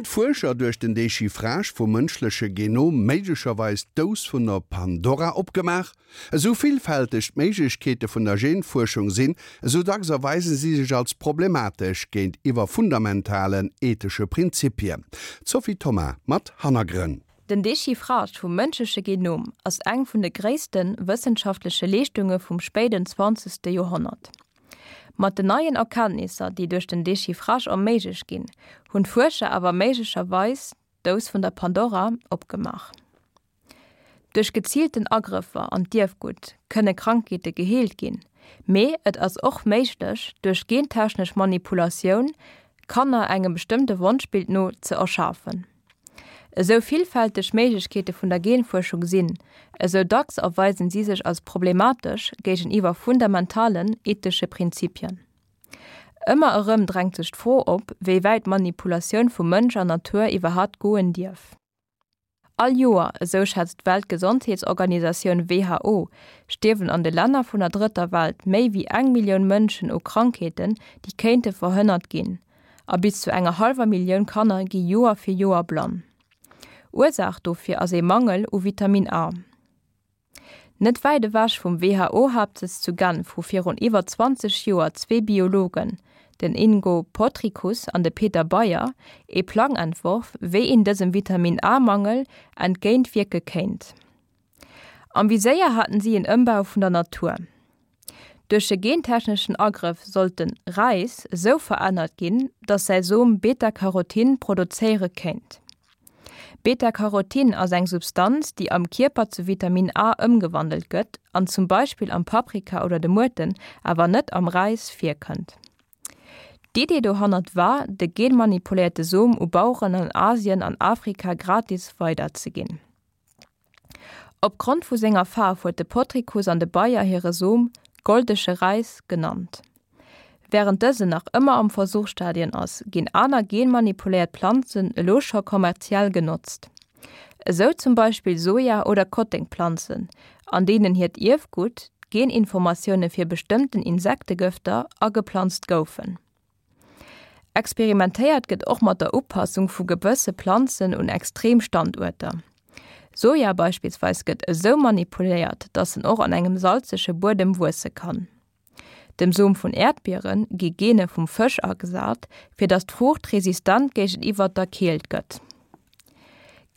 d'Fuerscher duerch den Dechiffrage vum mënschleche Genom méiglecherweis d'Dous vun der Pandora opgemaach? Esou villfälteg d'Méiglechkeete vun der Genfuerschung sinn, esou dacks erweise si sech als problematesch géintiwwer fundamentalen ethesche Prinzipien. D'Sophie Thoma mat Hannergrënn. Den Dechiffrage vum mënschleche Genom ass eng vun de gréisste wëssenschaftleche Leeschtunge vum spéiden zwanzegste Joerhonnert. Mat den neien Erkenntnisser, déi duerch den Dechiffrage erméiglecht ginn, hunn d'Fuerscher awer méiglecherweis d'Dous vun der Pandora opgemaach. Duerch geziilten Agrëffer an d'Ierfgutt kënne Krankheete geheelt ginn, mee et ass och méiglech, duerch gentechnesch Manipulatioun Kanner engem bestëmmte Wonschbild no ze erschafen. Esou villfälteg d'Méiglechkeete vun der Genfuerschung sinn, esou dacks erweisen si sech als problematesch géigeniwwer fundamentalen ethesche Prinzipien. Ëmmer erëm drängt sech d'Fro op, wéi wäit d'Manipulatioun vu Mënsch an Natur iwwerhat goen dierf. All Joer, esou schätzt d'Weltgesondheetsorganisatioun who, stierwen an de Länner vun der Drëtter Welt méi wéi eng Millioun Mënschen u Krankheeten, déi kéinte verhënnert ginn. A bis zu enger hallwer Millioun Kanner gi Joer fir Joer blann. Ursaach dofir ass ee Mangel u Vitamin A. Net wäit ewech vum WHO-Haaptsëtz zu Genf hu virun iwwer 20 Joer zwee Biologen, den Ingo Potrykus an de Peter Beyer, ee Plang entworf, wéi een dësem Vitamin-A-Mangel entgéint wierke kéint. Am Viséier haten si en Ëmbau vun der Natur. Duerch e gentechneschen Agrëff sollt de Räis esou verännert ginn, datt säi Som Beta-Carotin produzéiere kéint. Beta-Carotin ass eng Substanz, déi am Kierper zu Vitamin A ëmgewandelt gëtt an zum Beispill am Paprika oder de Muerten, awer net am Räis virkënnt. D'Idee dohannert war, de genmanipuléierte Som u Baueren an Asien an Afrika gratis weiderzeginn. Opgrond vu senger Faarf huet de Potrykus an de Bayer hire Som Goldege Räis genannt. Wärend dësen nach ëmmer am Versuchsstadien ass, ginn aner genmanipuléiert Planzen elo scho kommerziell genotzt. Esou zum Beispill Soja oder Kottengplanzen, an deenen hiert Ierfgutt, d'Geninformatioune fir bestëmmten Insektegëfter, ageplanzt goufen. Experimentéiert gëtt och mat der Upassung vu gewësse Planzen un extrem Standuerter. Soja beispillsweis gëtt esou manipuléiert, datt en och an engem salzege Buedem wuesse kann. Dem Som vun Äerdbiere gi Gene vum Fësch agesat, fir datt d'Fruucht resistent géigeniwwer der Keelt gëtt.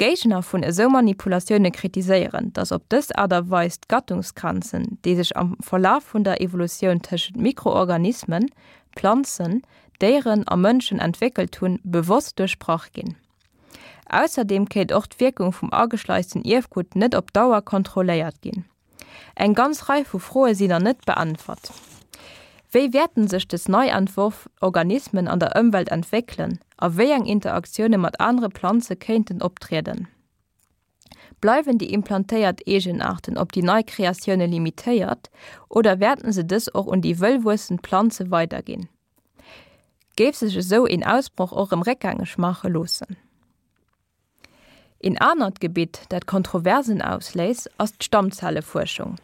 Géigner vun esou Manipulatioune kritiséieren, datt op dës Aart a Weis d'Gattungsgrenzen, déi sech am Verlaf vun der Evolutioun tëschent Mikroorganismen, Planzen, Déieren a Mënschen entwéckelt hunn, bewosst duerchbrach ginn. Ausserdeem kéint och d'Wierkung vum ageschleisten Ierfgutt net op Dauer kontrolléiert ginn. Eng ganz Rei vu Froe sinn nach net beäntwert. Wéi wäerten sech des nei entworf Organismen an der Ëmwelt entwéckelen a wéi eng Interaktioune mat anere Planze kéinten optrieden? Bleiwen déi implantéiert Eegenaarten op déi nei Kreatioune limitéiert oder wäerten se dës och un déi wëll wuessend Planze weiderginn? Géif sech esou een Ausbroch och erëm réckgängeg maache loossen? Een anert Gebitt, dat Kontroversen ausléist, ass d'Stammzellefuerschung.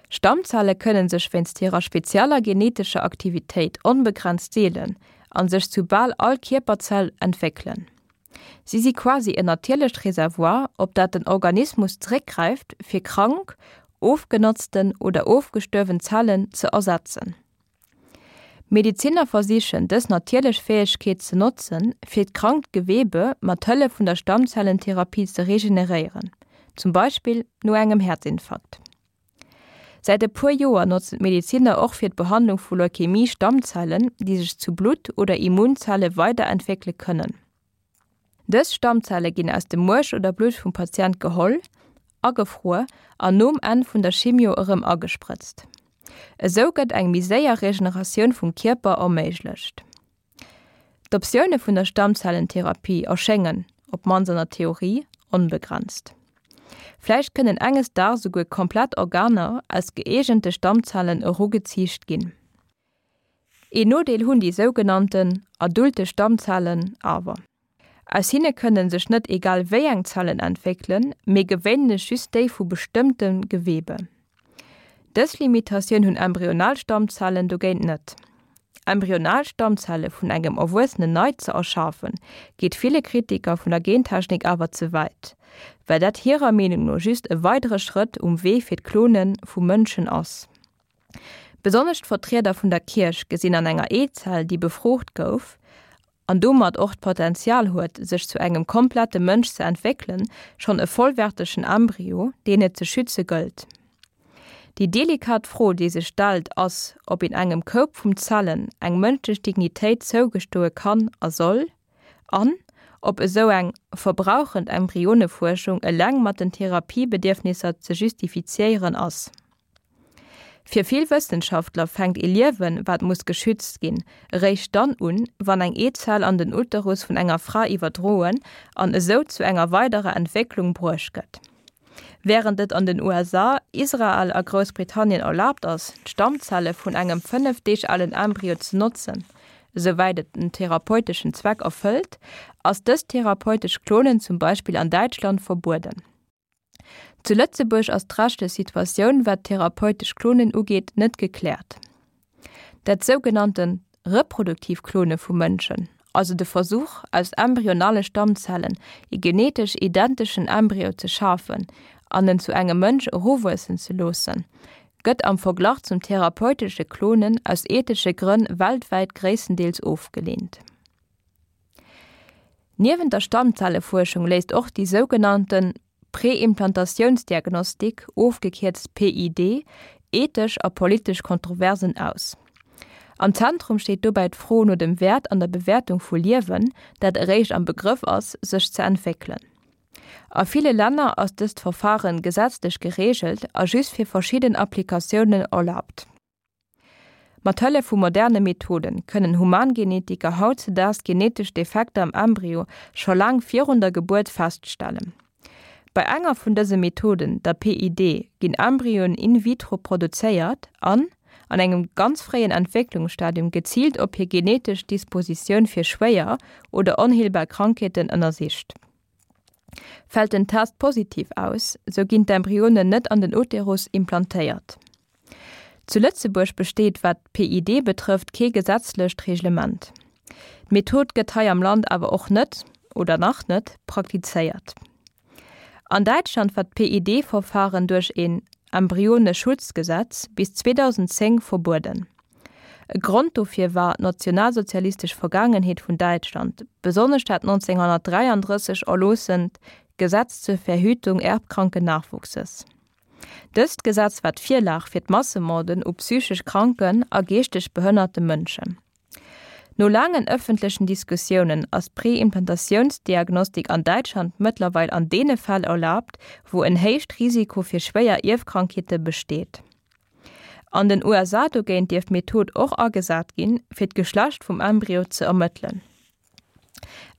Stammzelle kënne sech wéinst hirer spezieller genetescher Aktivitéit onbegrenzt deelen a sech zu bal all Kierperzell entwéckelen. Si si quasi en natierlecht Reservoir, op dat den Organismus zeréckgräift, fir krank, ofgenotzten oder ofgestuerwen Zellen ze ersetzen. Medeziner versichen, dës natierlech Fäegkeet ze notzen, fir d'krankt Gewebe mat Hëllef vun der Stammzellentherapie ze regeneréieren, zum Beispill no engem Häerzinfarkt. Säit e puer Joer notzen d'Medeziner och fir d'Behandlung vu Leukämie Stammzellen, déi sech zu Blutt oder Immunzelle weiderentwéckele kënnen. Dës Stammzelle ginn aus dem Muerch oder Blutt vum Patient geholl, agefruer an nom Enn vun der Chimio erëm agesprëtzt. Esou gëtt eng méi séier Regeneratioun vum Kierper erméiglecht. D'Optioune vun der Stammzellentherapie erschéngen, op d'mannst an der Theorie, onbegrenzt. Vläicht kënnen enges Daags esouguer komplett Organer aus gëeegente Stammzellen erugeziicht ginn. Een Nodeel hunn déi sougenannten adulte Stammzellen awer. Aus hinne kënne sech net egal wéi eng Zellen entwéckelen, mee gewéinlech just déi vu bestëmmte Gewebe. Dës Limitatioun hunn embryonal Stammzellen dogéint net. Embryonal Stammzelle vun engem Erwuessenen nei ze erschafen, geet ville Kritiker vun der Gentechnik awer ze wäit, well dat hirer Meenung no just e weidere Schrëtt um Wee fir d'Klone vu Mënschen ass. Besonnesch d'Vertrieder vun der Kierch gesinn an enger Eezell, déi befrucht gouf an domat och d'Potenzial huet, sech zu engem komplette Mënsch ze entwéckelen, schonn e vollwärtegen Embryo, deen et ze schütze gëllt. Déi delikat Fro, déi sech stellt, ass, ob een engem Koup vum Zellen eng mënschlech Dignitéit zougestoe kann a soll, an ob esou eng verbrauchend Embryonefuerschung eleng mat den Therapiebedierfnisser ze justifiziéieren ass. Fir vill Wëssenschaftler fänkt ee Liewen, wat muss geschützt ginn, eréischt dann un, wann eng Eezell an den Uterus vun enger Fra iwwerdroen an esou zu enger weiderer Entwécklung bruecht gëtt. Wärend et an den USA, Israel a Groussbritannien erlaabt ass, d'Stammzelle vun engem 5 Deeg alen Embryo ze notzen, esouwäit et en therapeuteschen Zweck erfëllt, ass dëst therapeutescht Klonen zum Beispill an Däitschland verbueden. Zu Lëtzebuerg ass d'rechtlech Situatioun, wat d'therapeutesch Klonen ugeet, net gekläert. Dat sougenannte reproduktiv Klone vu Mënschen, also de Versuch, aus embryonale Stammzellen ee genetesch identeschen Embryo ze schafen an en zu engem Mënsch eruwuessen ze loossen, gëtt am Verglach zum therapeutesche Klonen aus ethesche Grënn weltwäit gréisstendeels ofgeleent. Niewent der Stammzellefuerschung léisst och déi sougenannte Präimplantatiounsdiagnostik, ofgekierzt PID, ethesch a politesch Kontroversen aus. Am Zentrum steet dobäi d'Fro no dem Wäert an der Bewäertung vu Liewen, dat eréischt am Begrëff ass, sech ze entwéckelen. A ville Länner ass dëst Verfaren gesetzlech gereegelt a just fir verschidden Applikatiounen erlaabt. Mat Hëllef vu moderne Methode kënnen Humangenetiker hautzedaags genetesch Defekter am Embryo scho laang virun der Gebuert feststellen. Bei enger vun dëse Methoden, der PID, ginn Embryoen in vitro produzéiert an, an engem ganz fréien Entwécklungsstadium geziilt op hir genetesch Dispositioun fir schwéier oder onheelbar Krankheeten ënnersicht. Fält den Test positiv aus, sou ginn d'Embryonen net an den Uterus implantéiert. Zu Lëtzebuerg besteet, wat d'PID betrëfft, kee gesetzlecht Reglement. D'Method gëtt hei am Land awer och net, oder nach net, praktizéiert. An Däitschland war d'PID-Verfaren duerch een Embryoneschutzgesetz bis 2010 verbueden. E Grond dofir war d'nationalsozialistesch Vergaangenheet vun Däitschland, besonnesch dat 1933 erloossent Gesetz zur Verhütung erbkranken Nachwuchses. Dëst Gesetz war d'Virlag fir d'Massemorden u psychesch kranken a geeschteg behënnerte Mënschen. No laangen ëffentlechen Diskussiounen ass d'Präimplantatiounsdiagnostik an Däitschland mëttlerweil an deene Fäll erlaabt, wou en héicht Risiko fir schwéier Ierfkrankheete besteet. An den USA dogéint dierf d'Method och agesat ginn, fir d'Geschlecht vum Embryo ze ermëttelen.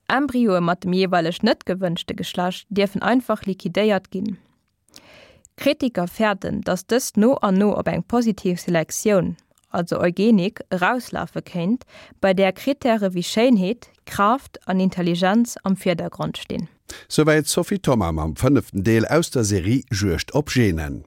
Embryoe mat dem jeeweileg net gewënschte Geschlecht dierfen einfach liquidéiert ginn. Kritiker fäerten, datt dëst no an no op eng positiv Selektioun, also Eugenik, erauslafe kéint, bei där Krittäre wéi Schéinheet, Kraaft an Intelligenz am Virdergrond stinn. Souwäit d'Sophie Thoma mam fënneften Deel aus der Serie Juegd op Genen.